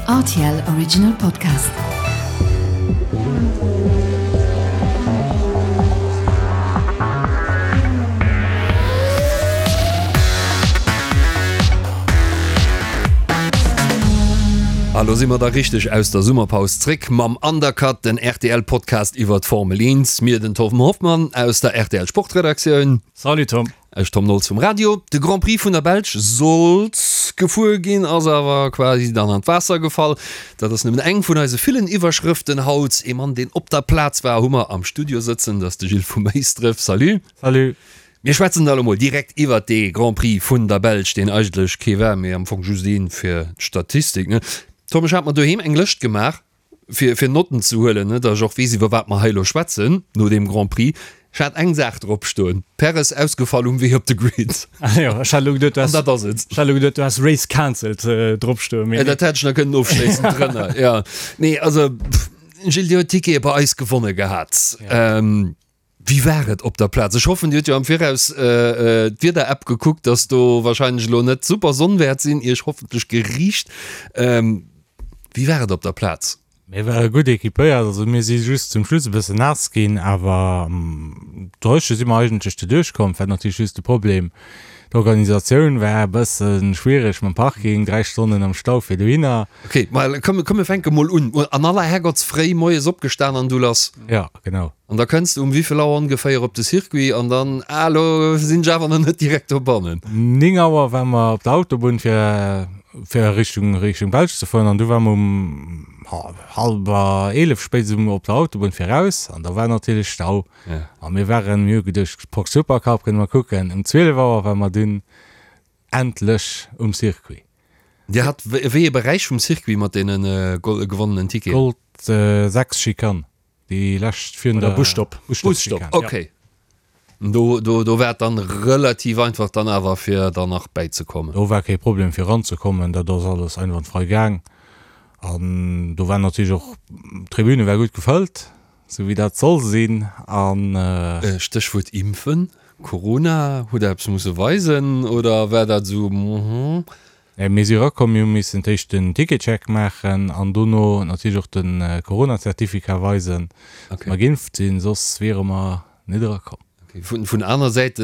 Rtl Original Podcast. A lo si mer da richteg aus der Summerpaus zréck mam Undercut, den RTL-Podcast iwwer d'Formel 1. Mir, den Torben Hoffmann aus der RTL Sportredaktioun. Salut Tom. Ech Tom Nolz vum Radio. De Grand Prix vun der Belsch sollt gefuer ginn, ass awer quasi dann an d'Waasser gefall. Dat ass nëmmen eng vun eise villen Iwwerschrëften haut. Ee Mann, deen op der Plaz war, hu mer am Studio sëtzen, dat ass de Gilles vu Méisdref. Salut. Salut. Mir schwätzen da lo mol direkt iwwert dee Grand Prix vun der Belsch, deen eigentlech kee war, mee am Fong just een fir d'Statistik, ne? Tom, ech hat mer doheem eng Lëscht gemaach, fir fir Notten ze huelen, ne, datt ech och weess, iwwer wat mer hei elo schwätzen no deem Grand Prix. Ech hat eng Saach drop stoen, Perez ausgefall um Wee op de Grid. Ah jo, ech hat elo geduet, du An dat ass et. Ech hat elo geduet, du häss Race cancelled drop stoen, mee. Dat hätt ech nach kënnen ofschléissend drënner, jo. Nee, also, Gilles, Dir hutt Tickete bei eis gewonne gehat. Wéi war et op der Plaz? Ech hoffen, Dir hutt jo am Viraus d'Wieder-App gekuckt, dass do warscheinlech elo net super Sonn wäert sinn, Iech hoffentlech geriicht. Wéi war et op der Plaz? Mir ware gutt equipéiert, also mir si just zum Schluss e bëssen naass ginn, awer dréche si mer eigentlech doduerch komm. War natierlech just de Problem, d'Organisatioun war e bësse schwiereg mam Parking, 3 Stonnen am Stau fir dohinner. Ok, ma komm, komm mir fänke mol un. An aller Herrgottsfréi moies opgestan an du lass. Jo, genau. An da kënns de um wéivill Auer ongeféier op de Circuit an dann, ah elo sinn ech awer nach net direkt dobannen. 9 Auer ware mer op der Autobunn fir fir Richtung Richtung Belsch ze fueren an du ware mer um hallwer 11 spéitstens op der Autobunn fir raus an da war natierlech Stau a mir waren, mir hu geduecht Porsche Supercup kënne mer kucken. Um 12 Auer ware mer dunn endlech um Circuit. Dir hat wéi ee Beräich vum Circuit mat deene gewonnenen Ticketen? Gold 6 Schikane. Déi lescht virun der Busstopp. Busstopp, ok. Do, do, do war et dann relativ einfach dann awer fir dann nach bäizekommen. Do war kee Problem fir eranzekommen, dat ass alles einwandfrei gaang. An do war natierlech och, d'Tribüne war gutt gefëllt, sou wéi dat soll sinn. An. Stéchwuert Impfen, Corona, hutt der eppes musse weisen oder war dat esou, mhm? Mir si erakomm, mir hu missen d'éischt den Ticketcheck maachen an dono natierlech och de Corona-Certificat weisen, datt mer geimpft sinn, soss wiere mer net erakomm. Vun aner Säite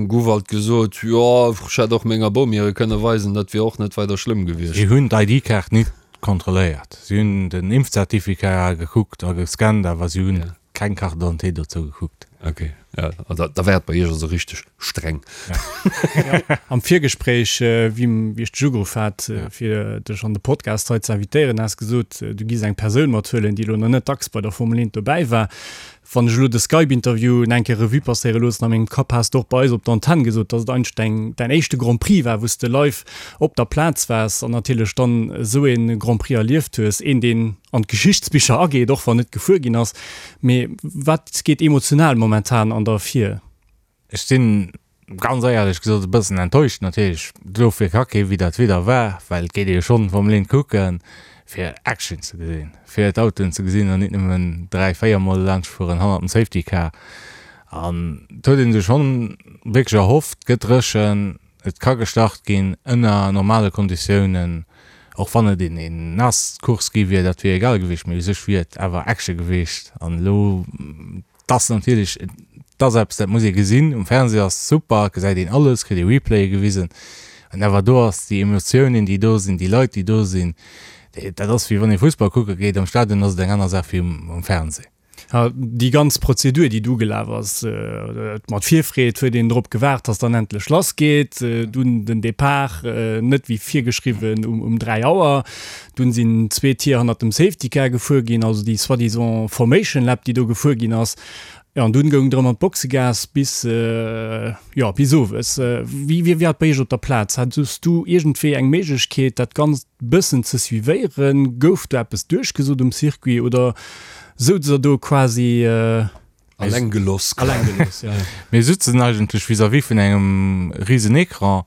gouf alt gesot, jo, ech hätt och menger Bom hire kënne weisen, dat wier och net weider schlëmm gewiescht. Si hunn d'ID-Kaart nit kontrolléiert. Si hunn den Impfcertificat gekuckt a gescannt, awer si hunn Keng Carte d'identité dozou gekuckt. Ok, ja, da, da war et bei Iech also richteg streng. Ja. Am Virgespréich, wéi, wéi ech dech ugeruff hat, fir dech an de Podcast hei ze invitéieren, has gesot, du giss eng Persoun mathuelen, déi elo nach net dacks bei der Formel 1 dobäi war. Wann ech elo de Skype-Interview eng Kéier Revue passéiere loossen a mengem Kapp, has de och bei eis op der Antenn gesot, dass et eigentlech däin, däin éischte Grand Prix war, wou s de live op der Plaz waars an natierlech dann esou ee Grand Prix erlieft hues, een, deen an d'Geschichtsbicher ageet, och wann net gefuer ginn ass. Mee wat geet emotional momentan an der vir? Ech sinn, ganz éierlech gesot, e bëssen enttäuscht natierlech. Dofir ka kee wéi dat Wieder war, well et geet ee jo schonn Formel 1 kucken, fir Action ze gesinn, fir d'Autoen ze gesinn an nit nëmmen 3, 4 Mol laanscht fueren hannert dem Safety Car. An et huet ee sech schonn wierklech erhofft, et gëtt dréchen, Et ka gestart ginn ënner normale Konditiounen, och wann et een naass Course gi wier, dat wier egal gewiescht, mee u sech wier et awer Action gewiescht. An elo, et ass natierlech, et ass eppes, dat muss ee gesinn. Um Fernseh ass super, et gesäit een alles, kritt ee Replaye gewisen, an awer do ass déi Emotiounen, déi do sinn, déi Leit, déi do sinn, dat ass wéi wann ee Fussball kucke geet. Am Stadion ass et eng aner Saach wéi um Fernseh. Déi ganz Prozedur, déi du gelaf ass, mat Virfreed huet een drop gewaart, dass dann endlech lass geet. Dunn den Depart, net wéi virgeschriwwen um 3 Auer. Dunn sinn zwee Tier hannert dem Safety Car gefuer ginn, also déi soi-disant Formation Lap, déi do gefuer ginn ass. Jo, an dunn goung et erëm an d'Boxegaass bis, jo, bis owes. Wéi wéi war et bei iech op der Plaz? Hatus du iergendwéi eng Méiglechkeet, dat Ganzt bëssen ze suivéieren? Gouf do eppes duerchgesot um Circuit oder souz der do quasi Alleng geloss? Alleng geloss, ja. Mir sutzen eigentlech vis-à-vis vun engem risen Ecran.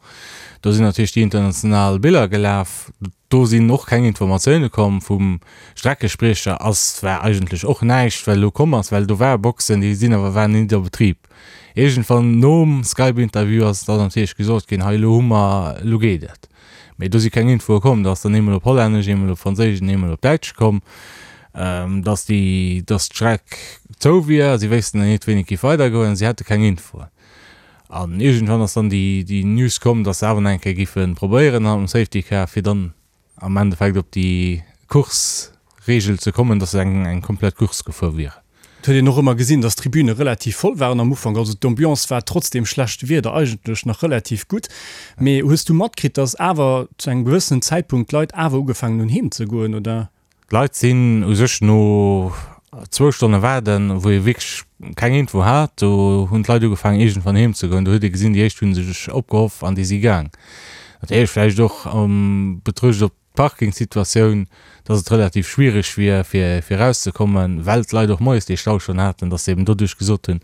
Do sinn natierlech déi international Biller gelaf. Do sinn och keng Informatioune komm vum Streckespriecher. Ass war eigentlech och näischt, well elo komm ass, well do ware Boxen, déi sinn awer waren nit a Betrib. Iergendwann nom Skype-Interview ass dann natierlech gesot ginn, hei elo hu mer, elo geet et. Mee do si keng Infoe komm. Do ass dann eemol op Hollännesch, eemol op Franséisch an eemol op Däitsch komm, dass déi, dass d'Streck zou wier. Si wéissten dann net, wéini et géif weidergoen. Si hätte keng Infoen. An iergendwann ass dann déi, déi News komm, dass se awer nach eng Kéier géife probéieren hannert dem Safety Car, fir dann am Endeffekt op déi Course-Reegel ze kommen, dass se eng, eng komplett Course gefuer wieren. Et huet een och ëmmer gesinn, dass d'Tribüne relativ voll waren am Ufank. Also d'Ambiance war trotz deem schlechte Wieder eigentlech nach relativ gutt. Mee hues du matkritt, dass awer zu engem gewëssenen Zäitpunkt d'Leit awer ugefaangen hunn heem ze goen, oder? D'Leit sinn u sech no zwou Stonne waarden, wou ee wierklech keng Info hat, do hunn d'Leit ugefaangen iergendwann heem ze goen. Do huet ee gesinn, déi éischt hu sech opgehoff an déi si gaang. Natierlech vläicht och am Betruecht op d'Parkingsituatioun, dass et relativ schwiereg wier fir fir erauszekommen, well d'Leit och moies dee Stau schonn haten, dass se eben doduerch gesot hunn,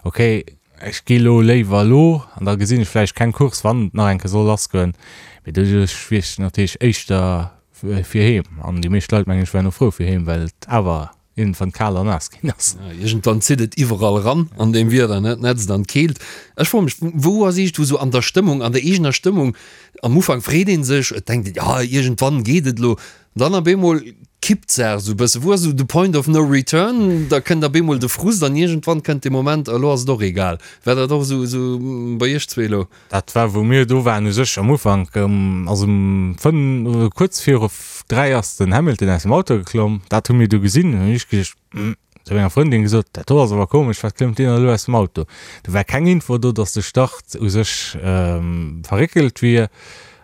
okay, ech gi lo léiwer elo an da gesinn ech vläicht keng Course, wann et nach eng Kéier soll lassgoen. Mee doduerch wier ech natierlech éischter fir heem. An déi meescht Leit, mengen ech, waren och frou fir heem, well et awer iergendwann kal an naass ginn ass. Ja, iergendwann zitt et iwwerall eran an deem Wieder, ne? D'Nätzt an d'Keelt. Ech froe mech, wou ass iergendwou sou an der Stëmmung, an der eegener Stëmmung, am Ufank freet ee sech, et denkt een, ja, iergendwann geet et elo, an dann op eemol kippt d'Saach sou e bësse. Wou ass esou de Point of no return? Da kënnt op eemol de Frust an iergendwann kënnt de Moment, elo ass et och egal. War dat och esou, esou bei iech zwee elo? Dat war wou mir do waren u sech am Ufank, also um 5 oder kuerz viru 3 ass den Hamilton aus dem Auto geklomm. Dat hu mir du gesinn. Hunn ech geduecht, hm, zu menger Frëndin gesot, dat do ass awer komesch, wat klëmmt deen elo aus dem Auto? Do war keng Info do, datt de Start u sech verréckelt wier.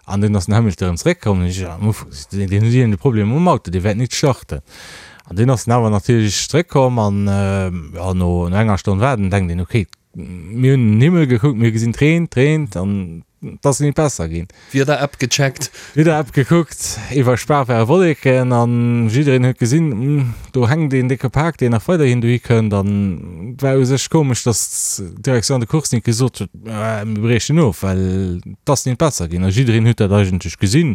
An dunn ass den Hamilton erëm zeréckkomm. Hunn ech am Ufank gesot, deen huet iergend e Problem mam Auto, dee wäert nit starten. An dunn ass en awer natierlech zeréckkomm an, jo, no enger Stonn waarden denkt een, okay, Mir hunn den Himmel gekuckt, mir hu gesinn, et reent, et reent an et ass nit besser ginn. D'Wieder-App gecheckt. D'Wieder-App gekuckt, iwwer Spa ware Wolleken an jiddereen huet gesinn, hm, do hänkt een décke Pak, deen nach weiderhin dohi kënnt. An et war u sech komesch, datt d'Direction de course nit gesot huet, mir briechen of, well et ass nit besser ginn. A jiddereen huet dat eigentlech gesinn,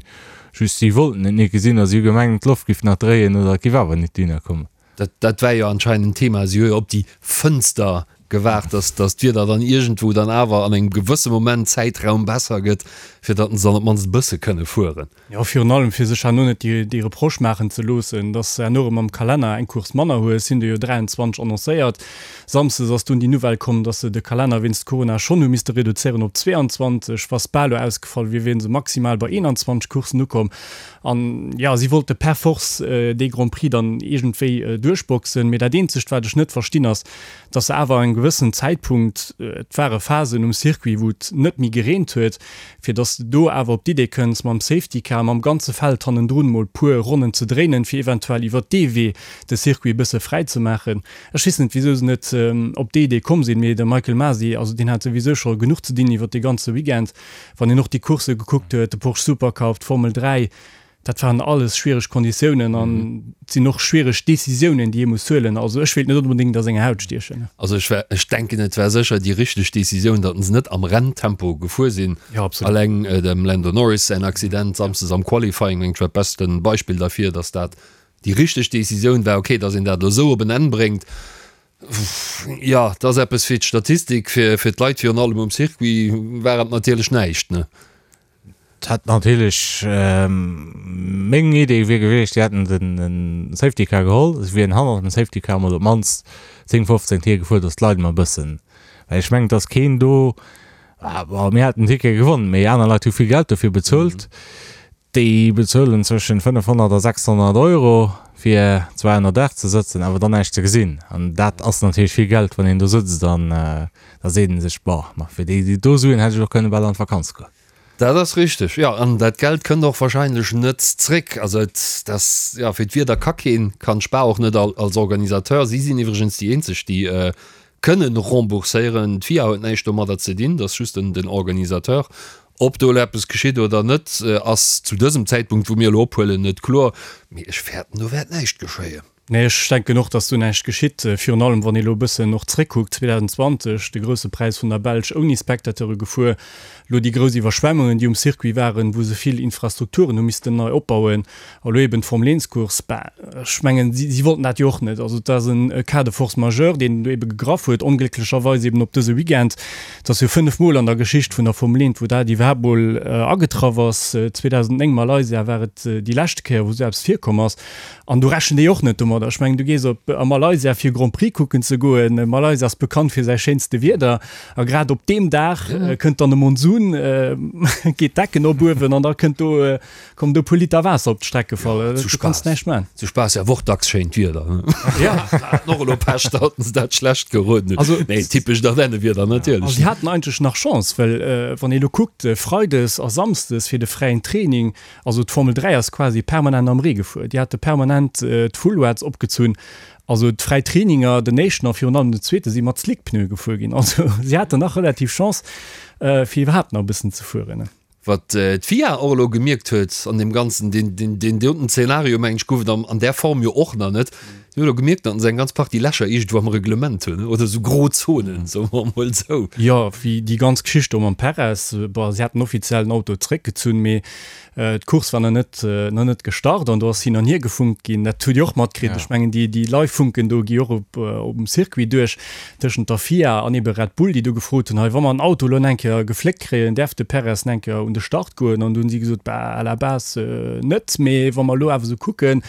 just si wollten et nit gesinn a si hu gemengt, d'Loft giff nach dréien oder et giff awer nit dohinner kommen. Dat, dat war jo anscheinend en Thema. Si hu jo op déi Fënster gewaart, dass, dass d'Wieder dann iergendwou dann awer an engem gewësse Moment, Zäitraum besser gëtt, fir datt se dann op d'mannst e bësse kënne fueren. Jo, virun allem fir sech herno net déi, déi Reproche maachen ze loossen, dass se herno erëm am Kalenner eng Course manner hu. Et sinn der jo 23 annoncéiert. Samsdes ass dunn déi Nouvelle komm, dass se de Kalenner wéinst Corona schonn hu misste reduzéieren op 22. Wa Spa elo ausgefall wier, wieren se maximal bei 21 Courssen ukomm. An jo, si wollte per force dee Grand Prix dann iergendwéi duerchboxen. Mee dat eenzegt, wat ech net verstinn, ass, dass se awer engem gewëssenen Zäitpunkt, et ware Phasen um Circuit, wou et net méi gereent huet, fir dass de do awer op d'Idee kënns, mam Safety Car, mam ganze Feld hannendrun mol puer Ronnen ze dréinen, fir eventuell iwwert dee Wee de Circuit e bësse fräi ze maachen. Ech weess net, wisou se net op déi Idee komm sinn, mee de Michael Masi, also deen hat souwisou scho genuch ze dinn iwwert dee ganze Weekend. Wann een och déi Coursse gekuckt huet, de Porsche Supercup, d'Formel 3, dat waren alles schwiereg Konditiounen an et sinn och schwiereg Decisiounen, déi ee muss huelen. Also ech wéilt net onbedéngt a senger Haut stiechen. Also ech war, ech denken et war sécher déi richteg Decisioun, datt se net am Renntempo gefuer sinn. Jo, absolut. Alleng dem Lando Norris säin Accident samsdes am Qualifying, mengt ech, war d'beste Beispill derfir, datt dat déi richteg Decisioun war. Okay, datt een dat elo esou op en Enn bréngt, Jo, et ass eppes fir d'Statistik, fir fir d'Leit virun allem um Circuit war et natierlech näischt, ne? Et hätt natierlech, meng Idee wier gewiescht, si hätten den Safety Car geholl, si wieren hannert dem Safety Car mol op d'mannst 10, 15 Tier gefuer, datt d'Leit mol e bëssen, well ech mengen, et ass keen do, bon, mir haten den Ticket gewonnen, mee aner Leit hu vill Geld dofir bezuelt. Déi bezuelen zwëschen 500 a 600 Euro fir zwar ënner Daach ze sëtzen, awer dann näischt ze gesinn. An dat ass natierlech vill Geld, wann een do sëtzt an da seet ee sech, Boah, ma fir déi do Suen hätt ech och kënne bal an d'Vakanz goen. Dat ass richteg, jo. An dat Geld kënnt och wahrscheinlech net zréck. Also et ass, jo, fir d'Wieder ka keen, kann d'Spar och net als Organisateur. Si sinn iwwregens déi eenzeg, déi kënnen rembourséieren. D'FIA huet näischt domadder ze dinn, dat ass just den Organisateur. Ob do elo eppes geschitt oder net, ass zu dësem Zäitpunkt, wou mir elo ophuelen, net kloer. Mee ech fäerten, do wäert näischt geschéien. Nee, ech denken och, datt do näischt geschitt. Virun allem, wann ee elo e bëssen och zréckkuckt, 2020, de Grousse Präis vun der Belsch ouni Spectateure gefuer, elo déi grouss Iwwerschwemmungen, déi um Circuit waren, wou se vill Infrastrukturen hu missten nei opbauen, a elo eben d'Formel-Eents-Course. Bah, ech mengen, si, si wollten dat jo och net. Also et ass e Cas de force majeure, deen do ebe gegraff huet, onglécklecherweis eben op dëse Weekend. Et ass jo 5 Mol an der Geschicht vun der Formel 1, wou dat iwwerhaapt mol agetraff ass. 2009 Malaysia war et déi leschte Kéier, wou esou eppes virkomm ass. An do rechent ee och net domadder. Ech mengen, du gees op a Malaysia fir Grand Prix kucken ze goen. Malaysia ass bekannt fir säi schéinste Wieder. A grad op deem Dag kënnt dann e Monsun, geet d'Decken op uewen an da kënnt do, kommen do e puer Liter Waasser op d'Streck gefall. Zu Du kanns Spaass. näischt man. Zu Spaass ja och dacks schéint Wieder. Ja. Haten och elo Pech, datt se dat schlecht geroden hunn. Also, Nee, typescht Ardennenwieder A natierlech. si haten eigentlech nach Chance, well wann ee elo kuckt, Freides a Samsdes fir de fräien Training, Also d'Formel 3 ass quasi permanent am Ree gefuer. Déi hate permanent d'Fullwets opgezunn. Also d'fräi Traininger, den éischten a virun allem den zweete si mat Slickpneue gefuer ginn. Also si haten nach relativ Chance, fir iwwerhaapt nach e bëssen ze fueren. Wat d'FIA och elo gemierkt huet an deem Ganzen, deen, deen, deen doten Zeenario, mengen ech, gouf et an där Form jo och nach net. Si hunn elo gemierkt, datt se eng ganz Partie Lächer iergendwou am Reglement hunn, oder esou Grozonen, soe mer emol esou. Jo, wéi déi ganz Geschicht do mam Perez. Bon, si haten offiziell den Auto zeréckgezunn, mee d'Course war nach net, nach net gestart an do ass hin an hier gefunkt ginn. Dat hutt Dir och matkritt. Ech mengen, déi, déi Live-Funken do gi och op, op dem Circuit duerch, tëschent der FIA an ebe Red Bull, déi do gefrot hunn, hei, wa mer den Auto elo eng Kéier gefléckt kréien, däerf de Perez eng Kéier un de Start goen? An do hunn si gesot, bah, à la base net, mee wa mer elo awer esou kucken,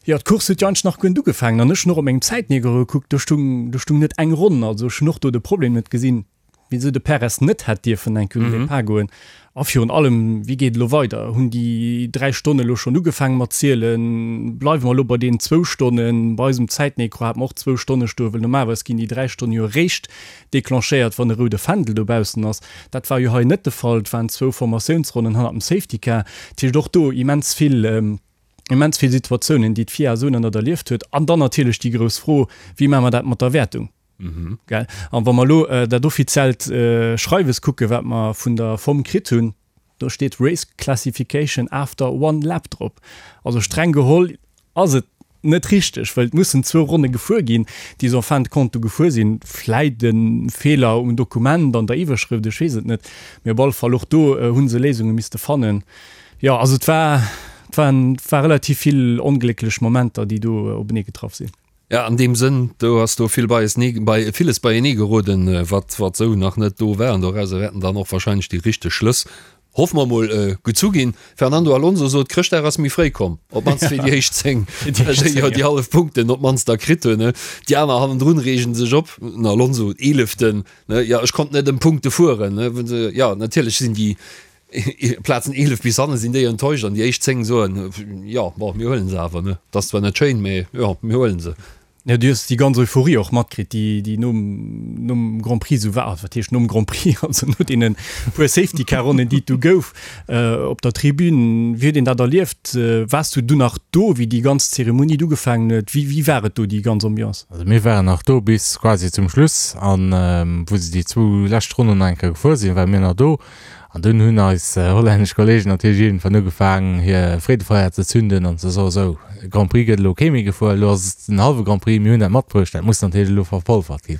Jo, d'Course huet jo eigentlech nach guer net ugefaangen an ech hunn och op mengem Zäitmierker gekuckt, do stung, do stung net eng Ronn. Also ech hunn och do de Problem net gesinn, wisou de Perez net hätt dierfen eng Kéier un den Depart goen. A virun allem, wéi geet et elo weider? Hunn déi 3 Stonne elo schonn ugefaange mat zielen? Bleiwe mer elo bei deenen zwou Stonnen? Bei eisem Zäitmikro hate mer och zwou Stonne stoen, well normalerweis ginn déi 3 Stonne jo eréischt declenchéiert, wann e roude Fändel dobaussen ass. Dat war jo hei net de Fall, et waren zwou Formatiounsronnen hannert dem Safety Car. Dat heescht och do immens vill. immens vill Situatiounen, déi d'FIA esou nach net erlieft huet. An dann natierlech déi grouss Fro, Wéi maache mer dat mat der Wäertung? Gell? An wa mer elo dat offiziellt Schreiwes kucken, wat mer vun der FOM kritt hunn, do steet Race Classification after one lap drop. Also streng geholl ass et net richteg, well et mussen zwou Ronne gefuer ginn, déi se en fin de compte du gefuer sinn. Vläit e Feeler um Dokument, an der Iwwerschrëft, ech weess et net. Mee op alle Fall och do hu se Léisunge misste fannen. Jo, also et war, et waren, et war relativ vill onglécklech Momenter, déi do openee getraff sinn. Ja, an deem Sënn, do ass do vill beiesnee, bei, villes beienee geroden, wat, wat esou nach net do war. An dorauser wäerten dann och wahrscheinlech déi richteg Schlëss, hoffe mer mol, gezu ginn. Fernando Alonso sot, Chrëschtdag ass méi fréi komm, op d'mannst fir déi éischt 10, déi jo déi hallef Punkten op d'mannst da kritt hunn. Déi aner hannendrun reegen sech op, den Alonso, Eeleften, ne, jo, ech konnt net ëm Punkte fueren, ne. Jo, natierlech sinn déi Plazen 11 bis hannen sinn déi enttäuscht an déi éischt 10 soen, jo, bon, mir huelen se awer, ne. Et ass zwar net schéin, mee jo, mir huelen se. Jo, du hues déi ganz Euphorie och matkritt, déi, déi nom, nom Grand Prix esou war. Also wat heescht nom Grand Prix? Also no deene puer Safety-Car-Ronnen, déi et du gouf op der Tribün. Wéi huet een dat erlieft? Waars du du nach do, wéi déi ganz Zeremonie du ugefaangen huet? Wéi, wéi war et do, déi ganz Ambiance? Also mir waren nach do bis quasi zum Schluss an wou se déi zwou lescht Ronnen nach eng Kéier gefuer sinn, ware mir nach do. An dunn hunn eis hollännesch Kollegen natierlech iergendwann ugefaangen, hir Freedefeier ze zünden an ze soen, Sou, Grand Prix gëtt elo kee méi gefuer, elo ass et den hallwe Grand Prix, mir hunn dat matbruecht, dat muss natierlech elo verpolfert ginn.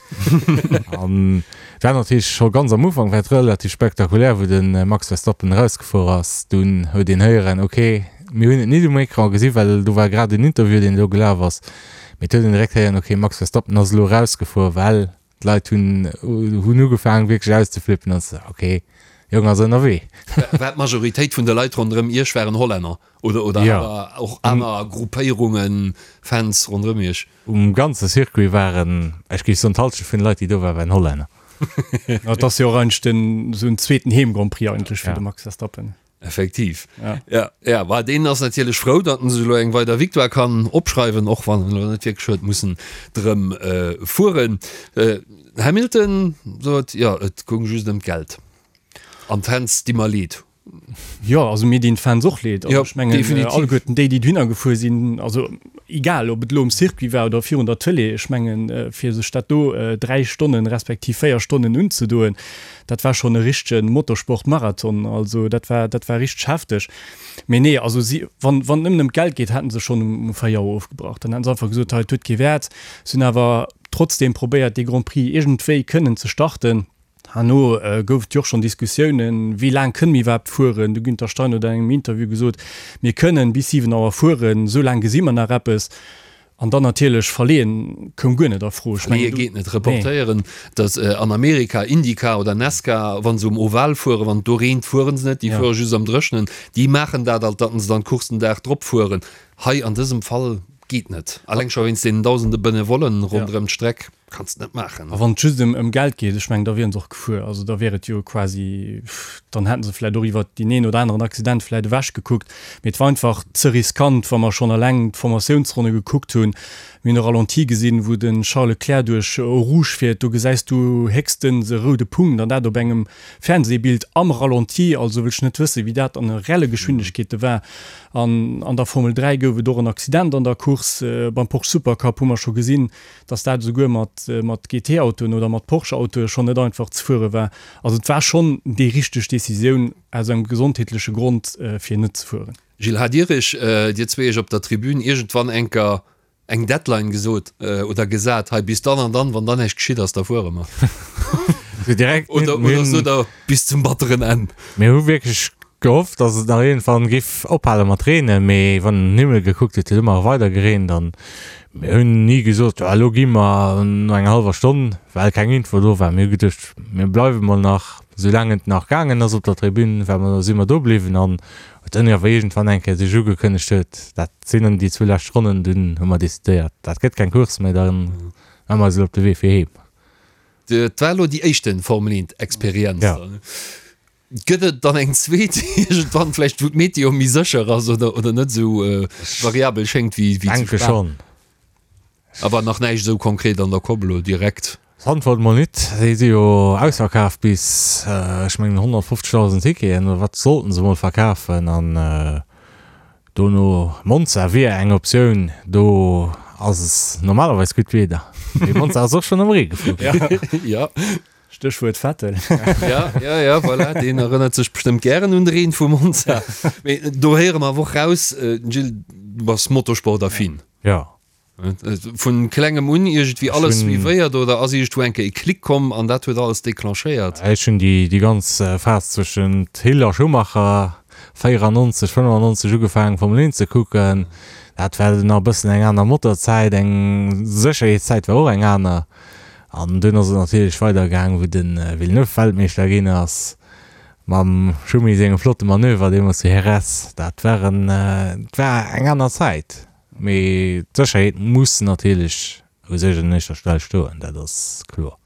An et war natierlech scho ganz am Ufank war et relativ spektakulär, wou de Max Verstappen erausgefuer ass. Dunn huet een héieren, ok, mir hunn et nit um Ecran gesi well do war grad en Interview, deen do gelaf ass, mee et huet een direkt héieren, ok, Max Verstappen ass elo erausgefuer, well D'Leit hunn hunn ugefaangen wierklech auszeflippen an ze ok, Jong ass ënnerwee. War d'Majoritéit vun de Leit ronderëm Iech waren Hollänner oder oder Jo. awer och aner Gruppéierungen, Fans ronderëm Iech? Um ganze Circuit waren, ech géif soen d'Halschent vun de Leit déi do waren, waren Hollänner. Et ass jo och eigentlech den esou en zweeten Heem-Grand Prix eigentlech fir Ja. de Max Verstappen. Effektiv. Ja. Ja, ja, war deen ass natierlech frou, datt en sech elo eng weider Victoire kann opschreiwen, och wann en elo net wierklech huet mussen drëm äh, fueren. Äh, Hamilton sot, jo, et goung just ëm d'Geld. An d'Fans di mer leed. Jo, also mir dinn d'Fans och leed. Also Ja, ech mengen, definitiv. alleguerten déi, déi dohinner gefuer sinn, also. Egal, ob et elo um Circuit war oder virun der Tëlee, ech mengen, fir sech dat do 3 Stonnen, respektiv 4 Stonnen unzedoen, dat war schonn e richtege Motorsport-Marathon. Also dat war, dat war richteg hefteg. Mee nee, also si, wann, wann et nëmmen ëm d'Geld geet, hätten se schonn um 4 Auer ofgebrach. Dann hätten se einfach gesot, hei, et huet kee Wäert. Se hunn awer trotzdeem probéiert, dee Grand Prix iergendwéi kënnen ze starten. Herno gouf et jo och schonn Diskussiounen, wéi laang kënne mir iwwerhaapt fueren. De Günther Steiner huet an engem Interview gesot, Mir kënnen bis 7 Auer fueren, esou laang gesi mer nach eppes. An dann natierlech verleeën koum guer net a Fro. Ech mengen, Verleeë geet net. Reportéieren, datt an Amerika IndyCar oder NASCAR, wa se um Oval fueren, wann et do reent, fuere se net, déi fuere just am Dréchnen. Déi maachen dat alt, datt se dann d'Course den Dag drop fueren. Hei an dësem Fall geet net. Alleng scho wéinst deenen dausende Benevollen ronderëm d'Streck. Kanns net maachen. A wann et just ëm Geld geet, ech mengen, da wieren se och gefuer. Also da wier et jo quasi, dann hätten se vläicht och iwwert deen een oder aneren Accident vläicht ewech gekuckt. Mee et war einfach ze riskant, wa mer schonn eleng d'Formatiounsronne gekuckt hunn. Mir hunn e Ralenti gesinn, wou de Charles Leclerc duerch Eau Rouge fiert. Do gesäis du héchstens e roude Punkt, an dat op engem Fernsehbild am Ralenti. Also wëll ech net wëssen, wéi dat an reelle Geschwindegkeete war. An an der Formel 3 gouf et och en Accident an der Course. Beim Porsche Supercup hu mer scho gesinn, dass dat esouguer mat mat GT-Autoen oder mat Porsche-Autoe schonn net einfach ze fuere war. Also et war schonn déi richteg Decisioun aus engem gesondheetleche Grond fir net ze fueren. Gilles, hat Dir Iech, Dir zwee Iech op der Tribün iergendwann enker eng Deadline gesot oder gesat, hei bis dann an dann, wann dann näischt geschitt ass, da fuere mer? Direkt Oder, oder sot Der bis zum batteren Enn? Mir hu wierklech gehofft, dass et nach iergendwann giff ophale mat reenen, mee wann een den Himmel gekuckt huet, huet ëmmer weider gereent an mir hunn ni gesot, jo elo gi mer no enger hallwer Stonn, well keng Info do war. Mir hu geduecht, mir bleiwe mol nach, soulaang et nach gaangen ass op der Tribün, war mer, si mer do bliwwen an huet dann awer iergendwann eng Kéier sech ugekënnegt huet, dat sinn dann déi zwou lescht Ronnen, dunn hu mer decidéiert, dat gëtt keng Course méi, da maache mer eis elo op de Wee fir heem. Dat war elo déi éischte Formel 1 Experienz. Ja. Gëtt et dann eng zweet iergendwann vläicht, wou d'Meteo méi sécher ass oder, oder net esou variabel schéngt wéi, wéi zu Denke Spa? schonn. Awer nach näischt esou konkret an der Kopp elo direkt. Zandvoort mol nit, déi si jo ausverkaf bis, ech mengen 150.000 Ticketen oder wat sollten se mol verkafen an dono Monza wier eng Optioun, do ass normalerweis gutt Wieder, mee Monza ass och schonn am Ree gefuer ginn. Ja. Stéchwuert Vettel. Ja, ja, ja, voilà, deen erënnert sech bestëmmt gären un de Reen vu Monza. Mee do héiere mer awer och raus, Gilles, du bass motorsportaffin. Ja. Vun klengem un iergendwéi alles suivéiert oder ass iergendwou eng Kéier e Klick komm an dat huet alles declenchéiert? Ech hunn déi, déi ganz Phas zwëschent Hill a Schumacher 94, 95 ugefaangen Formel 1 ze kucken. Dat war nach e bëssen eng aner Motorzäit, eng Sécherheetszäit war och eng aner. An dunn ass et natierlech weider gaang, wou de Villeneuve Weltmeeschter ginn ass, mam Schumi sengem flotte Manöver deemools zu Jerez. Dat war en, et war eng aner Zäit. Mee d'Sécherheet muss natierlech u sech un éischter Stell stoen, dat ass kloer.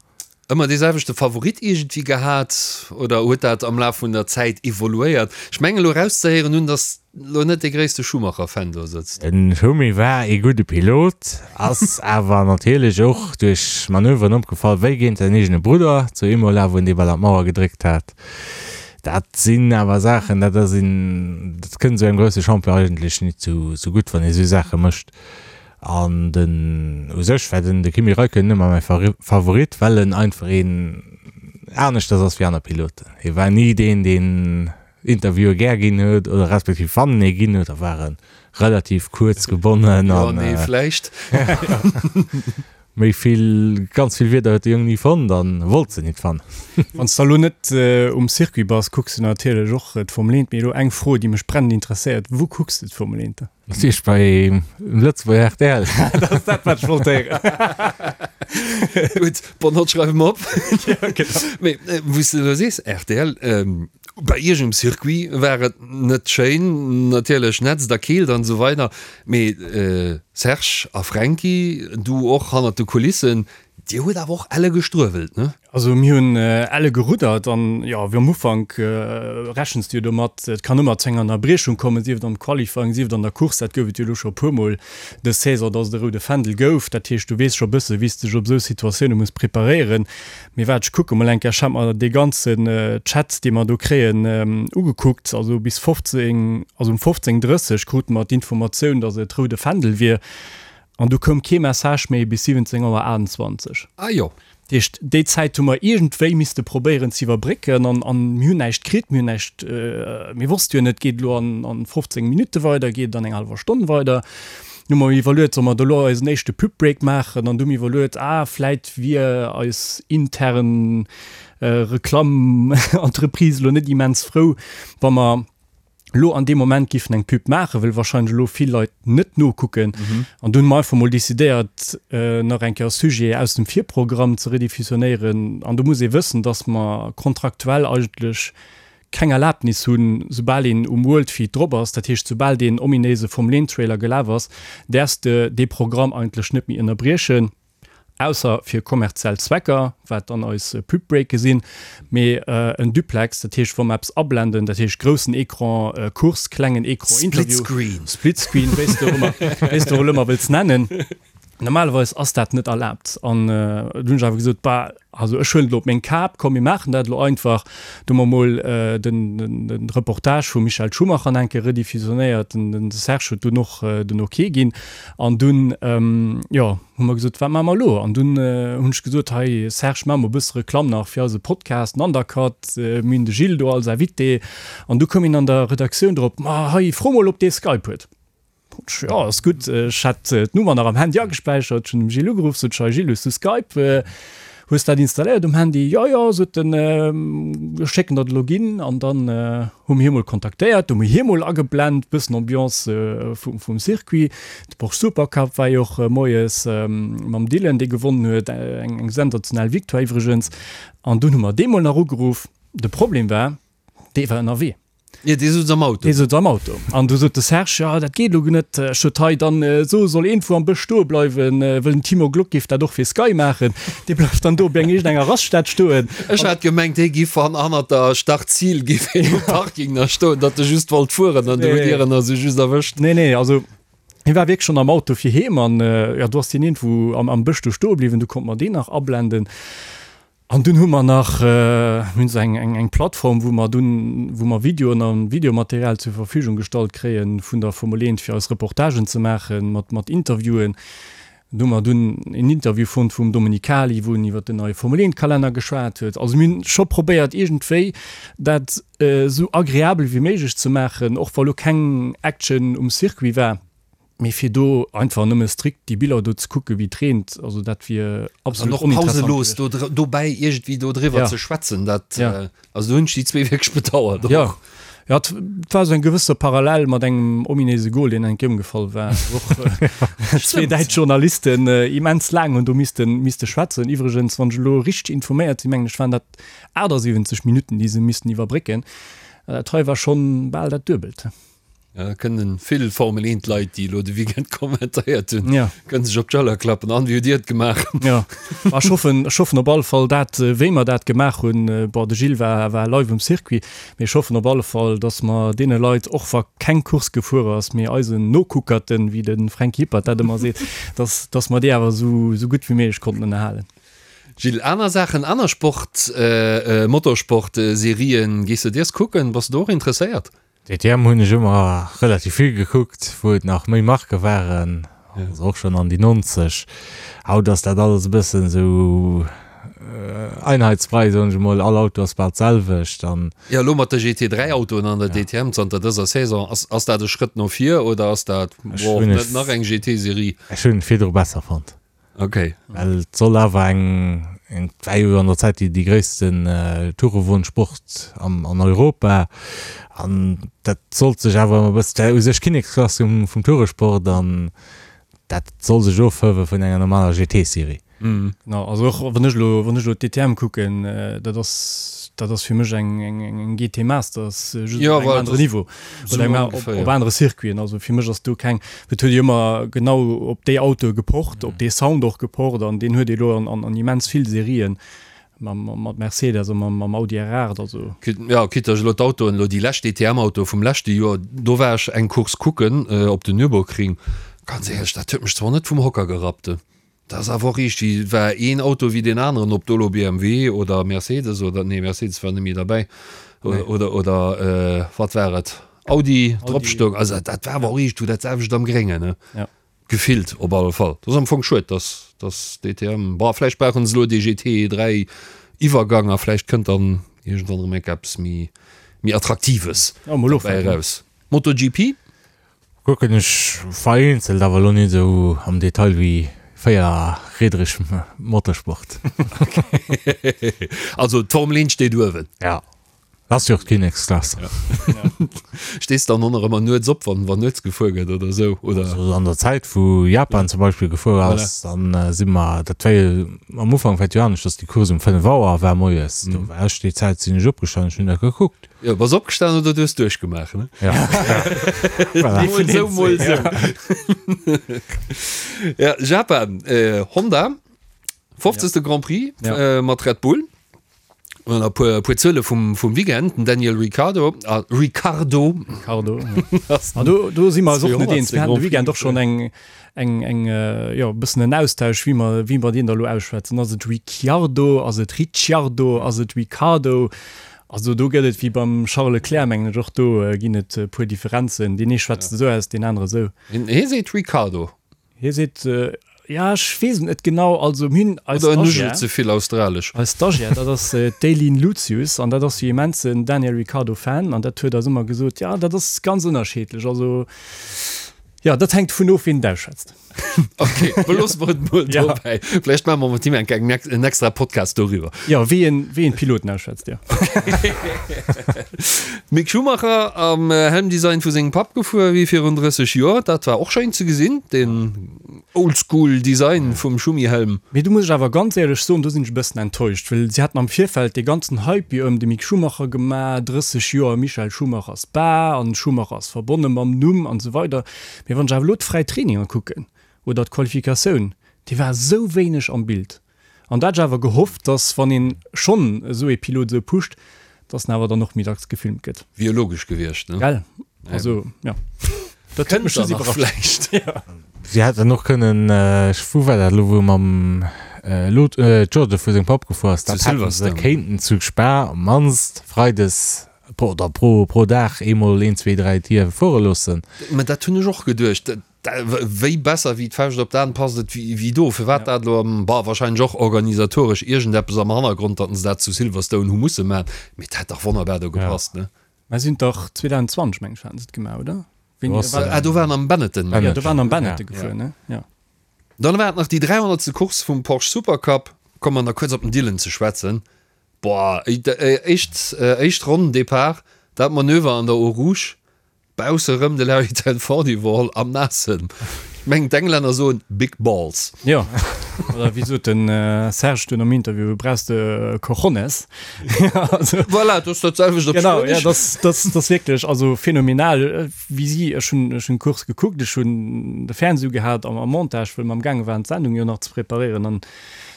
Ëmmer dee selwechte Favorit iergendwéi gehat oder huet dat am Laf vun der Zäit evoluéiert? Ech mengen elo erauszehéieren hunn, datt elo net dee gréisste Schumacher-Fan do sëtzt. Den Schumi war ee gudde Pilot, ass awer natierlech och duerch Manöveren opgefall, wéi géint säin eegene Brudder zu Imola, wou en dee bal an d'Mauer gedréckt hat. Dat sinn awer Saachen, dat ass een, dat kënnt esou engem grousse Champion eigentlech nit zu gutt, wann ee esou Saache mécht. An den, u sech war den de Kimi Räikkönen ëmmer mäi Favorit, well en einfach een aneschters ass wéi aner Piloten. Hie war ni deen, deen Interviewe gär ginn huet, oder respektiv wann en ee ginn huet, da war e relativ kuerz gebonnen Jo, an nee, vläicht. méi vill, ganz vill Wierder huet de Jong ni fonnt an wollt se nit fannen. Wann s de elo net um Circuit bass, kucks de natierlech och d'Formel 1. Mee elo eng Fro, déi mech brennend interesséiert, Wou kucks de d'Formel 1 dann? Natierlech bei Lëtzebuerger rtl. Dat ass dat, wat ech wollt héieren. Gutt, bon, dat schreiwe mer op. Ja, genau. Mee wou s de elo sees, rtl, bei iech um Circuit war et net schéin, natierlech nätzt a keelt an esou weider, mee Serge a Fränki, du och hannert de Kulissen,. Dir hutt awer och elle gestruewelt, ne? Also mir hunn elle geruddert an jo, wéi am Ufank rechens de jo domat, et kann ëmmer zu enger Ënnerbriechung kommen, sief et am Qualifying, sief et an der Course. Dat gouf et jo elo scho e puermol dës Saison, dass et e roude Fändel gouf. Dat heescht, du weess scho e bësse wéi s de dech op esou Situatioune muss preparéieren. Mee waart, ech kucke mol eng Kéier, ech hat mer dee ganzen Chat, dee mer do kréien, ugekuckt. Also bis 15, also um 15:30 krute mer d'Informatioun, dass et roude Fändel wier. An du koum kee Message méi bis 17 Auer 28. Ah jo. Dat heescht, déi Zäit hu mer iergendwéi misste probéieren ze iwwerbrécken an, an mir hunn näischt kritt, mir hunn näischt, mir wosste jo net, geet et elo an, an 15 Minutte weider, geet et an enger hallwer Stonn weider. Du hu mer iwwerluet, solle mer da elo eisen éischte Pub-Break maachen? An du hu mir iwwerluet, ah, vläit wier eis intern Reklamm-Entreprise elo net immens frou, wa mer, elo an deem Moment giffen eng Pub maachen, wëll wahrscheinlech elo vill Leit net nokucken. An dunn hu mer einfach mol decidéiert, nach eng Kéier e Sujet aus dem Virprogramm ze rediffusionéieren. An do muss ee wëssen, dass mer kontraktuell eigentlech keng Erlaabnis hunn, soubal een um World Feed drop ass, dat heescht soubal deen ominéise Formel 1 Trailer gelaf ass, däerfs de dee Programm eigentlech net méi ënnerbriechen. Ausser fir kommerziell Zwecker, wat dann eis Pub-Breake sinn, mee en Duplex, dat heescht wa mer eppes ablenden, dat heescht groussen Ecran Course, klengen Ecran Interview, Splitscreen, Splitscreen, wéi s de och ëmmer, wéi s de och elo ëmmer wëlls nennen, normalerweis ass dat net erlaabt. An du hunn ech awer gesot, bah, also ech huelen et elo op meng Kap, komm mir maachen dat elo einfach. Do hu mer mol den, den Reportage vum Michael Schumacher nach eng Kéier rediffusionéiert, den Serge huet dunn och den Ok ginn an dunn, jo, Hu mer gesot, wat maache mer elo? An dunn hunn ech gesot, hei Serge, maache mer e bësse Reklamm nach fir eise Podcast, den Undercut, mir hunn de Gilles do als Invité. An du koum een an der Redaktioun drop, ma hei, fro mol, ob dee Skype huet. Ech, jo, ass gutt. Ech hat d'Nummer nach am Handy agespäichert, ech hunn dem Gilles ugeruff, sot ech, hei Gilles, hues du Skype? Hues dat installéiert um Handy? Jo, jo, sot en, ech schécken der de Login. An dann hu mir hie mol kontaktéiert, hu mir hie mol ageblent, bëssen Ambiance vum Circuit. De Porsche Supercup war jo och moies mam Dylan, dee gewonnen huet, eng sensationell Victoire iwwregens. An dunn hu mer dee mol nach ugeruff. De Problem war, dee war ënnerwee. Jo, dee souz am Auto. Dee souz am Auto. An du sot de Serge, Jo, dat geet elo net. Ech sot, Hei, dann so, soll iergendwou am Bësch stoe bleiwen, wëll den Timo Glock géif dat och fir Sky maachen. Dee bleift dann do op eng iergendenger Raststätt stoen. Ech hat gemengt, hie giff han hannert der Start-Ziel giff hien um Parking nach stoen, datt e just wollt fueren an du hutt Dir en also just erwëscht. Nee, nee, also hie war wierklech schonn am Auto fir heem an, jo, du ass deen iergendwou am am Bësch do stoe bliwwen, du konnt mer deen nach ablenden. An dunn hu mer nach, mir hunn esou eng, eng, eng Plattform, wou mer dunn, wou mer Videoen a Videomaterial zur Verfügung gestallt kréie vun der Formel 1, fir eis Reportagen ze maachen, mat, mat Interviewen. Do hu mer dunn en Interview fonnt vum Domenicali, wou en iwwer den neie Formel 1 Kalenner geschwat huet. Also mir hunn scho probéiert iergendwéi dat esou agreabel wéi méiglech ze maachen, och wa lo keng Action um Circuit war. Mee fir do einfach nëmme strikt déi Biller do ze kucken, wéi et reent, also dat wier absolut oninteressant. An och pauselos do dobäi iergendwéi do driwwer ze schwätzen, dat, also do hunn ech déi zwee wierklech bedauert och. Jo, jo, et war esou eng gewësse Parallel mat engem ominéise Gol, deen eng Kéier ëmgefall war, wou och zwee däitsch Journalisten immens laang hunn do missten, misste schwätzen. Iwwregens, wann ech elo richteg informéiert sinn, mengen ech, waren dat 78 Minutten, déi se missten iwwerbrécken. Dat hei war schonn bal dat Duebelt. Ja, kënnen vill Formel 1 Leit, déi elo de Weekend kommentéiert hunn, ja. kënnen sech op d'Schëller klappen. An wéi hutt Dir et gemaach? Ja. Ech hoffen, ech hoffen op alle Fall dat, äh, wéi mer dat gemaach hunn, äh, bon, de Gilles war, war live um Circuit, mee ech hoffen op alle Fall, datt mer deene Leit, och wa keng Course gefuer ass, mee eisen Nokuckerten, wéi de Fränk Hippert dat ëmmer seet, datt, datt mer déi awer esou, esou gutt wéi méiglech konnten ënnerhalen. Gilles, aner Saachen, aner Sport, äh, Motorsport, Serien, gees de dees kucken? Bass de do och interesséiert? DTM hunn ech ëmmer relativ vill gekuckt, wou et nach méi Marke waren, also och schonn an déi 90. Haut ass dat alles e bëssen esou Einheitsbrei, soen ech emol, all Auto ass bal d'selwecht an. Jo, elo mat de GT3 Autoen an der DTM zanter dëser Saison, ass ass dat e Schrëtt no vir oder ass dat, boah, net nach eng GT-Serie? Ech hunn et virdru besser fonnt. Ok. Well et soll awer eng, eng, war jo an der Zäit déi, déi gréissten Tourewon-Sport am, an Europa an dat sollt sech awer ëmmer e bëssen, dat war u sech Kinneksklass vum, vum Touresport an dat soll sech ofhëwe vun enger normaler GT-Serie. Genau, also och wann ech elo, wann ech elo d'DTM kucken, dat ass. Dat ass fir mech eng, eng, eng GT Masters, just op engem anere Niveau oder eng, op, op anere Circuiten. Also fir mech ass do keng, et huet jo ëmmer genau op déi Autoe gepocht, op dee Sound och gepocht an deen huet ee lo an, an, an immens vill Serien mam, mat Mercedes a mam, mam Audi R8. Also. Jo, quitte ech elo d'Autoen, elo déi lescht DTM-Autoe vum leschte Joer, do war ech eng Course kucken op den Nürburgring. Ganz éierlech, dat huet mech zwar net vum Hocker gerappt. Dat ass awer och iergendwéi, war een Auto wéi deen aneren, ob do elo BMW oder Mercedes oder, nee Mercedes war net méi derbäi, oder, oder wat war et, Audi drop stoung. Also dat war awer och iergendwou dat selwecht am Gréngen, ne? Gefillt op alle Fall. Dat ass am Fong schued, dass, dass DTM, bon vläicht brauchen se elo dee GT 3 Iwwergang a vläicht kënnt dann iergendwann erëm enk eppes méi, méi Attraktives dobäi eraus. MotoGP? Kucken ech vereenzelt, awer elo net esou am Detail wéi véierriedreg Motorsport. Also d'Formel 1 steet uewen. Ja, ass jo och d'Kinneksklass. Stees dann och nach ëmmer nuets op, wann wann nuets gefuer gëtt oder esou, oder? Also an der Zäit wou Japan zum Beispill gefuer ass, dann si mer, dat war jo am Ufank war et jo anescht, dass déi Course um 5 Auer war moies, do war ech déi Zäit sinn ech opgestanen, ech hunn dat gekuckt. Jo, bass opgestan oder du hues duerchgemaach, ne? Ja. Voilà. Mol sou, mol sou. Ja, Japan, äh, Honda, 50. Ja. Grand Prix ja. äh, mat Red Bull. Und e puer, puer Zuele vum, vum Weekend, den Daniel Ricciardo, ah, Ricciardo. Ricciardo. Ja. ah, do, do si mer och net eens. Wir hatten de Weekend och schon eng, eng, eng, äh, jo, bëssen en Austausch, wéi mer, wéi mer deen da lo ausschwätzen. Ass et Ricciardo, ass et Ricciardo, ass et Ricciardo? Also do gëtt et wéi beim Charles Leclerc, mengen ech, och do ginn et e puer Differenzen. Deen ee schwätzt esou aus, deen anere esou. Hie seet Ricardo. Hie seet, jo ech weess et net genau. Also mir hunn eis Oder en nuschelt ze vill australesch. Eis Stagiaire, dat ass d'Eileen Lucius an dat ass jo immensen Daniel Ricciardo Fan an dat huet eis ëmmer gesot, jo dat ass ganz ënnerscheedlech. Also jo, dat hänkt dovun of, wien et ausschwätzt. Ok, beloosse mer et mol dobäi. Vläicht maache mer mat him eng Kéier en extra Podcast doriwwer. Jo, wéi een, wéi een d'Piloten ausschwätzt, jo. Mick Schumacher am Helmdesign vu sengem Papp gefuer wéi virun 30 Joer. Dat war och schéin ze gesinn, deen Oldschool Design vum Schumi-Helm. Mee do muss ech awer ganz éierlech soen, do sinn ech e bëssen enttäuscht, well si haten am Virfeld dee ganzen Hype jo ëm de Mick Schumacher gemaach, 30 Joer Michael Schumacher Spa an Schumacher ass verbonne mam Numm an esou weider. Mee wann ech awer elo d'fräi Traininger kucken oder d'Qualifikatioun, déi war esou wéineg am Bild. An da hat ech awer gehofft, dass wann een schonn esou ee Pilot esou pusht, dass en awer dann och méi dacks gefilmt gëtt. Wier logesch gewiescht, ne? Gell? Also, jo. Dat huet mech just iwwerrascht. Vläicht. Jo. Si hätten och kënnen, ech, wou war dat elo, wou mam Lot, Jordan vu sengem Papp gefuer ass, dat hätte se kéinten zu Spa op d'mannst freides Oder pro, pro Dag eemol een, zwee, dräi Tier fuere loossen. Mä dat hunn ech och geduecht. Wéi besser wéi d'Fauscht op d'An passt et wéi do. Firwat dat elo am, bah, wahrscheinlech och organisatoresch iergendeppes am Hannergrond, datt se dat zu Silverstone hu musse maachen. Mee et hätt dach wonnerbar do gepasst, ne? Mä si hunn dach 2020, meng ech, haten se et gemaach, oder? Wéini war dat? Ah, do waren am Benetton. Jo, do waren am Benetton gefuer, ne? Jo. Dann war et nach déi 300. Course vum Porsche Supercup. Komme mer nach kuerz op den Dylan ze schwätzen. Boah, éischt éischt Ronn Depart, dat Manöver an der Eau Rouge, bausse rëm de Larry ten Voorde iwwerholl am Naassen. Ech mengen d'Englänner soen big balls. Jo, oder wéi sot den Serge dunn am Interview, brauchs de Cojones. Voilà, dat ass dat selwecht op Spuenesch. Genau, ja, dat dat ass wierklech also phänomenal wéi si, ech hunn ech hunn d'Course gekuckt, ech hunn de Fernseh ugehat am am Montage, wëll mer am gaange waren d'Sendung jo nach ze preparéieren an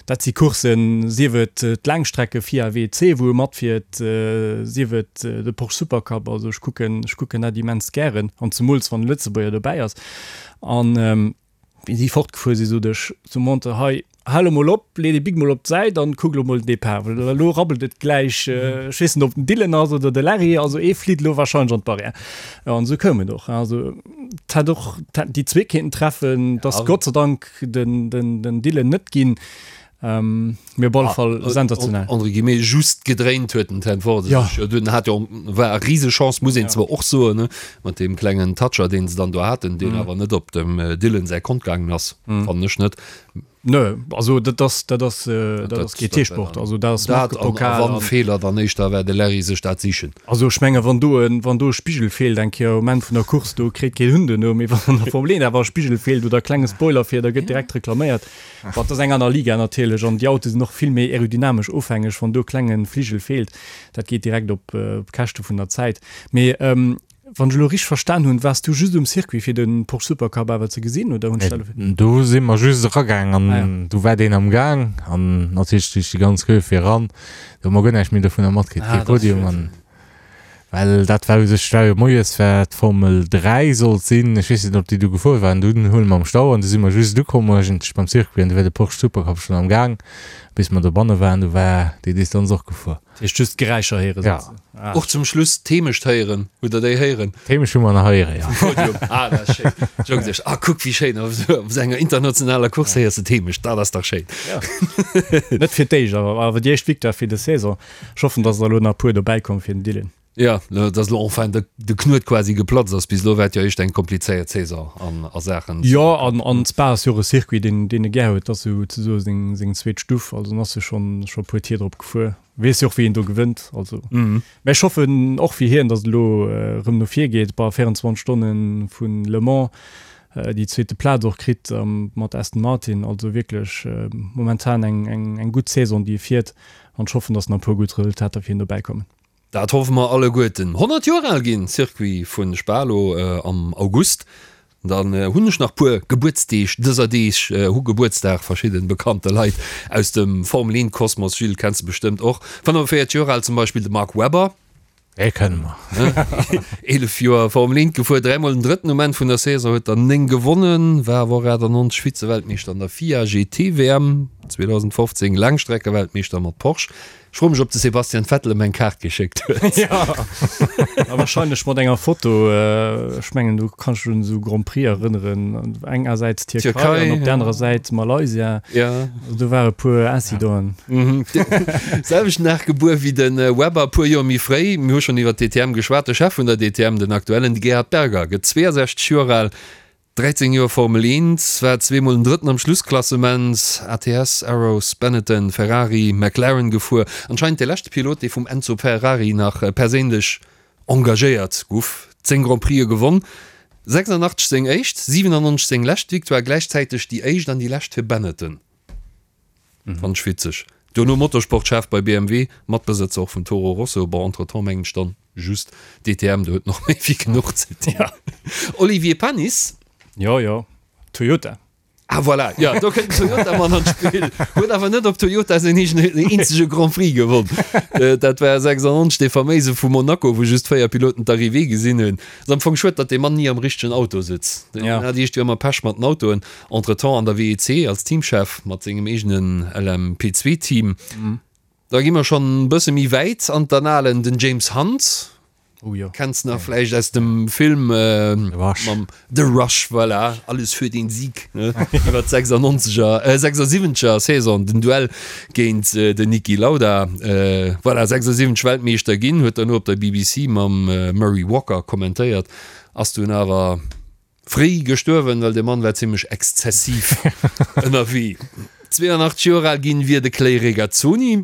Dat si Courssen, sief et d'Laangstrecke FIA WEC, wou e matfiert, sief et de Porsche Supercup. Also ech kucken, ech kucken dat immens gären, an zemools wann e Lëtzebuerger dobäi ass. An wéi si fortgefuer sinn, sot ech zum Monteur, Hei, hal emol op, lee dee Bic mol op d'Säit an kuck elo mol den Depart, well elo rabbelt et gläich. Ech weess net, ob den Dylan ass oder de Larry, also ee flitt elo wahrscheinlech an d'Barrière. Jo, an esou koum et och. Also et hätt och, et hätten déi zwee kéinten treffen, et ass Gott sei Dank den, den, den Dylan net ginn. Ähm, mee op alle Fall sensationell. Entre guillemets just gedréint huet den Ten Voorde Ja. sech jo dunn, hat jo, war e Risechance, muss een zwar och soen, ne, mat deem klengen Toucher, deen se dann do haten, deen awer net op dem Dylan säi Kont gaangen ass, fannen ech net. Nö, also dat ass, dat ass, dat ass GT-Sport, also dat ass Markepokal. Dat an a wann Feeler, dann éischter war de Larry sech dat sichen. Also ech menge wann do en, wann do e Spigel feelt eng Kéier um Enn vun der Course, do kritt keen Hunn duerno, mee wann an der Formel 1 awer e Spigel feelt oder e klenge Spoiler fir, da gëtt direkt reklaméiert. Bon, dat ass eng aner Liga natierlech an déi Autoe sinn och vill méi aerodynamesch ofhängeg, wann do e klenge Fligel feelt, dat geet direkt op d'Käschte vun der Zäit. Mee Wann ech elo richteg verstan hunn, waars du just um Circuit fir de Porsche Supercup awer ze gesinn oder hunn ech dat elo Nee, do si mer just eragaang an ah, ja. do war deen am Gaang an natierlech duerch déi ganz Queue fir eran, do hu mer guer näischt méi dovunner matkritt, ah, kee Podium an well dat war u sech, war jo moies war d'Formel 3 sollt sinn, ech weess net ob déi du gefuer waren, dunn huele mer am Stau an du si mer just ukomm eigentlech beim Circuit an du war de Porsche Supercup schonn am Gaang, bis mer dobanne waren, du war déi Distanz och gefuer. Dat heescht just d'Geräischer héieren Ja. Ah. Och zum Schluss d'Heemecht héieren. Hutt der déi héieren? D'Heemecht hu mer nach héieren, ja. Vum Podium. Ah, dat ass schéin. Ech hu geduecht, ah, kuck wéi schéin, op esou enger internationaler Course héiers de d'Heemecht, dat ass dach schéin. Ja. Net fir d'éischt, awer awer déi éischt Victoire fir des Saison. Ech hoffen, dass der elo nach e puer dobäi kommen fir den Dylan. Ja, dass elo enfin de, de Knuet quasi geplatzt ass. Bis elo war et jo éischt eng komplizéiert Saison an a Saachen. Jo, an an Spa ass jo och e Circuit, deen deen e gär huet. Dat ass sou ze soe seng seng zweet Stuff. Also en ass jo schonn scho e puer Tier drop gefuer. Weess jo och wéi een do gewënnt. Also mä ech hoffen och fir hien, dass et elo erëm no vir geet. Bei 24 Stonne vu Le Mans déi zweete Plaz och kritt mat Aston Martin. Also wierklech momentan eng eng eng gutt Saison déi e fiert an ech hoffen, dass nach e puer gutt Resultater fir hien dobäi kommen. Dat hoffe mer alleguerten. 100 Joer al ginn Circuit vu Spa lo am August. Dann hunn ech nach puer Gebuertsdeeg dëser Deeg. Hu Gebuertsdag verschidden bekannte Leit aus dem Formel 1 Kosmos. Gilles, kenns de bestëmmt och. 45 Joer al zum Beispill de Mark Webber. Dee kënne mer. 11 Joer Formel 1 gefuer, dräimol den drëtten um Enn vun der Saison, huet der 9 gewonnen, war awer och 98 Vize-Weltmeeschter an der FIA GT WM, 2015 Laangstreckeweltmeeschter mat Porsche. Ech froe mech op de Sebastian Vettel em eng Kaart geschéckt huet. Jo, a wahrscheinlech mat enger Foto. Ech mengen do kanns dech un esou Grand Prix erënneren, engersäits Tierkei an op der anerer Säit Malaysia. Jo. Also do ware puer Incidenten. Selwechten Dag gebuer wéi de Webber, puer Joer méi fréi. Mir hu schonn iwwer d'DTM geschwat. De Chef vun der DTM, den aktuellen, de Gerhard Berger, gëtt 62 Joer al. 13 Joer Formel 1, war zweemol den Drëtten am Schlussklassement, ATS, Arrows, Benetton, Ferrari, McLaren gefuer. Anscheinend de leschte Pilot, dee vum Enzo Ferrari nach perséinlech engagéiert guff. 10 Grand Prixë gewonn, 86 seng éischt, 97 seng lescht Victoire, gläichzäiteg déi éischt an déi lescht fir Benetton. Fand ech witzeg. Duerno Motorsportchef bei BMW, Matbesëtzer och vun Toro Rosso. Bon, entretemps mengen ech dann just DTM, do huet en och méi wéi genuch ze dinn. Olivier Panis. Jo, jo, Toyota. Ah voilà, jo, do kënnt den Toyota-Mann an d'Spill. Huet awer net op Toyota säin eegene, eenzege Grand Prix gewonn. Dat war 96, dee faméise vu Monaco, wou just 4 Piloten d'Arrivée gesinn hunn. Ass am Fong schued, datt dee Mann ni am richtegen Auto sëtzt. Deen hat iergendwéi ëmmer Pech mat den Autoen. Entretemps an der WEC als Teamchef mat sengem eegenen LMP2 Team. Da gi mer schonn e bësse méi wäit an d'Annalen, den James Hunt. Oh jo. Kenns nach vläicht aus dem Film The Rush. Mam The Rush, voilà, alles für den Sieg, ne? Iwwer d'96er, 76er Saison, den Duell géint den Niki Lauda. Voilà, 76 Weltmeeschter ginn, huet derno op der BBC mam Murray Walker kommentéiert, ass dunn awer Fréi gestuerwen, well de Mann war zimmlech exzessiv ënnerwee. 82 Joer al ginn wier de Clay Regazzoni,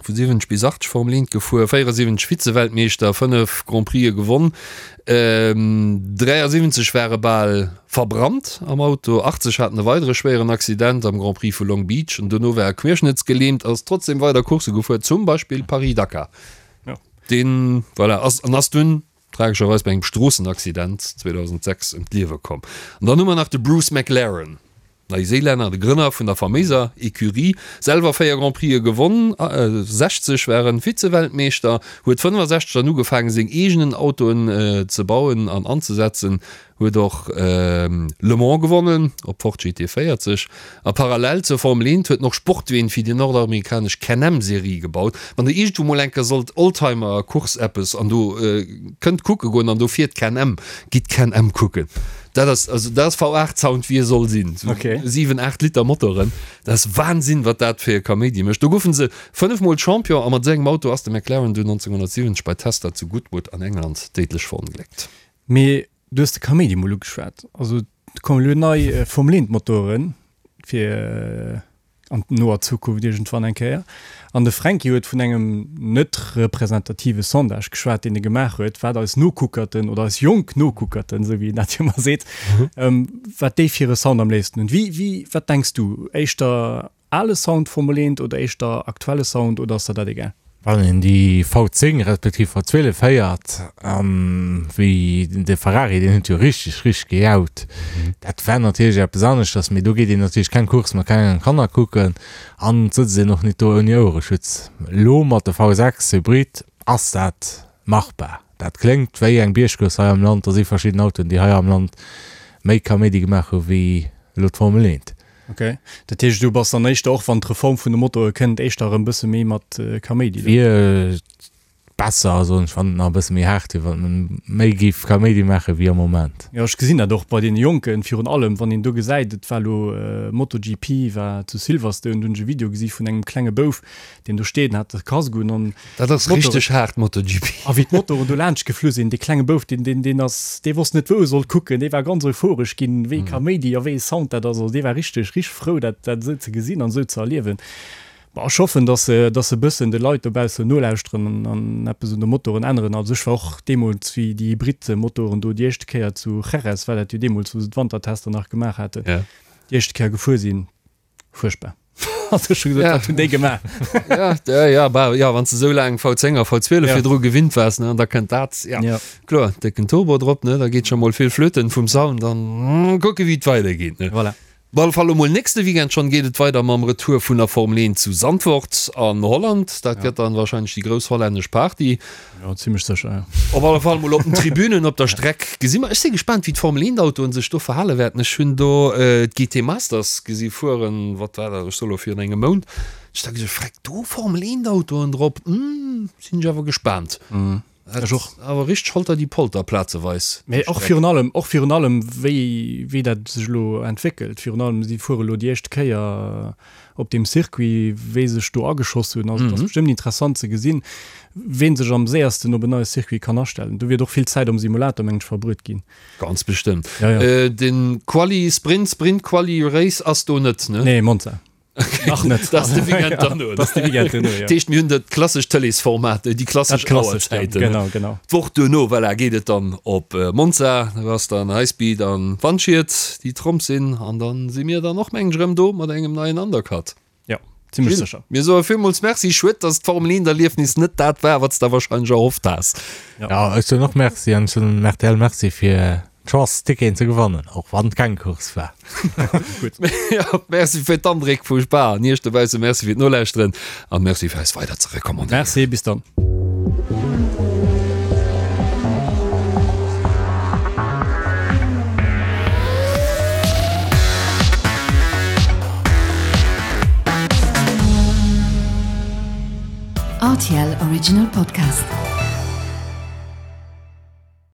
vu 70 bis 80 Formel 1 gefuer, 74 Vize-Weltmeeschter, 5 Grand Prixë gewonn, 73 war e bal verbrannt am Auto, 80 hat en e weidere schwéieren Accident am Grand Prix vu Long Beach an dono war e querschnëttsgelähmt, ass trotzdem weider Coursse gefuer, zum Beispill Paris-Dakar. Deen, voilà, ass an ass dunn Tragescherweis bei engem Stroossenaccident 2006 ëm d'Liewe komm. An dann hu mer nach de Bruce McLaren, Neiséilänner, de Grënner vun der faméiser Ecurie, selwer 4 Grand Prixë gewonn, 60 war en Vize-Weltmeeschter, huet 65 dann ugefaangen seng eegenen Autoen ze bauen an anzesetzen, Huet och Le Mans gewonnen op Ford GT 40 a parallel zur Formel 1 huet en och Sportween fir déi nordamerikanesch Can-Am Serie gebaut. Wann der iergendwou mol eng Kéier sollt Oldtimer Course eppes an do kënnt kucke goen an do fiert Can-Am, gitt Can-Am kucken. Dat ass also dat ass V8 Sound wéi e soll sinn. Sou 7, 8 Liter Motoren, dat ass Wahnsinn wat dat fir e Kaméidi mécht. Do goufen se 5 mol Champion a mat esou engem Auto ass de McLaren dunn 1970 bei Tester zu Goodwood an England déidlech verongléckt. Mee du hues de Kaméidi mol ugeschwat. Also et kommen elo nei Formel 1 Motoren. Fir an noer Zukunft iergendwann eng Kéier. An de Fränki huet vun engem net representative Sondage geschwat, deen e gemaach huet, wat eis Nokuckerten oder eis jonk Nokuckerten, esou wéi en dat jo ëmmer seet, wat déi fir e Sound am léifsten hunn. Wéi, wéi, wat denks du? Éischter ale Sound Formel 1 oder éischter aktuelle Sound oder ass der dat egal? Wann een déi V10 respektiv V12 héiert, wéi de Ferrari, deen huet jo richteg, richteg gejaut. Dat war natierlech eppes aneschters, mee do geet een natierlech keng Course mat klengen Kanner kucken an et sëtzt een och nit do ouni Ouereschutz. Elo mat de V6 Hybrid ass dat machbar. Dat kléngt wéi eng Biergcourse hei am Land. Do si verschidden Autoen, déi hei am Land méi Kaméidi gemaach hu wéi elo d'Formel 1. Ok, dat heescht du bass dann éischter, och wann d'Reform vun de Motoe kënnt, éischter erëm bësse méi mat Kaméidi do? Wier besser, soen ech, wann et nach e bësse méi haart wier, wann et méi géif Kaméidi maache wéi am Moment. Jo, ech gesinn dat och bei deene Jonken, virun allem wann een do gesäit, et war elo MotoGP war zu Silverstone, do hunn ech e Video gesi vun engem klenge Bouf, deen do steet an hat de Casque un an Dat ass richteg haart MotoGP. A wéi d'Motoren do laanscht geflu sinn, dee klenge Bouf, deen, deen, deen ass, dee wosst net wou e sollt kucken, dee war ganz euphoresch ginn, wéi Kaméidi a wéi e Sound dat ass. Also dee war richteg, richteg frou dat, dat esou ze gesinn an esou ze erliewen. Bon, ech hoffen, dass se, dass se e bëssen de Leit dobaussen nolauschteren an, an eppes un de Motoren änneren. Also ech war och deemools, wéi déi Hybrid-Motoren do déi éischte Kéier zu Jerez war dat jo deemools, wou se d'Wantertester nach gemaach haten, déi éischte Kéier gefuer sinn, Fuerchtbar. Also ech hu gesot, Ja. wat hunn déi gemaach? Ja, ja, ja, bah, ja, wann s de sou laang V10 a V12 Ja. virdru gewinnt waars, ne, an da kënnt dat, ja, Ja. kloer, décken Turbo drop, ne, da geet scho mol vill flöten vum Sound an mm, kucke wéi et weidergeet, ne. Voilà. Op alle Fall elo mol nächste Weekend schonn geet et weider mam Retour vun der Formel 1 zu Zandvoort an Holland. Dat gëtt dann wahrscheinlech déi grouss hollännesch Party. Jo, zimmlech sécher, jo. Op alle Fall mol op den Tribünen, op der Streck gesi mer. Ech si gespaant, wéi d'Formel 1 Autoen sech do verhale wäerten. Ech hunn do d'GT Masters gesi fueren, wat war dat, ech soe lo virun engem Mount. Ech da gesot, Freck, do Formel 1 Autoen drop, hm, sinn ech awer gespaant. Ech och. Awer richteg holter die Polter plazeweis. Mee och virun allem, och virun allem, wéi, wéi dat sech elo entwéckelt. Virun allem, si fuere elo déi éischte Kéier op deem Circuit, wéi sech do ageschoss hunn. Also et ass bestëmmt interessant ze gesinn, ween sech am séiersten op en neie Circuit kann astellen. Do wäert och vill Zäit am Simulator, mengen ech, verbruet ginn. Ganz bestëmmt. Ja, ja. Den Quali Sprint, Sprint Quali Race ass do net, ne? Nee, Monza. Nach net. Dat ass de Weekend derno. Dat ass de Weekend derno, ja. Dat heescht, mir hunn dat klassescht Tëleesformat, déi klassesch Dat klassescht, ja. Auerzäiten. Genau, genau. D'Woch duerno, voilà, geet et dann op Monza. Do ass dann Highspeed an Wandschied, déi Tromp sinn. An dann si mir dann och, mengen ech, erëm do mat engem neien Undercut. Jo, zimmlech Gilles, sécher. mir soe villmools Merci. Schued, dass d'Formel 1 Erliefnis net dat war, wat s de warscheinlech erhofft has. Ja, ech soen och Merci an ech soen dem rtl Merci fir d'Chance Ticketen ze gewannen, och wann et keng Course war. Gutt. Ja, merci fir d'Andréck vu Spa an Iech dobausse Merci fir d'Nolauschteren an Merci fir eis weider ze recommandéieren. Merci, bis dann. RTL Original Podcast.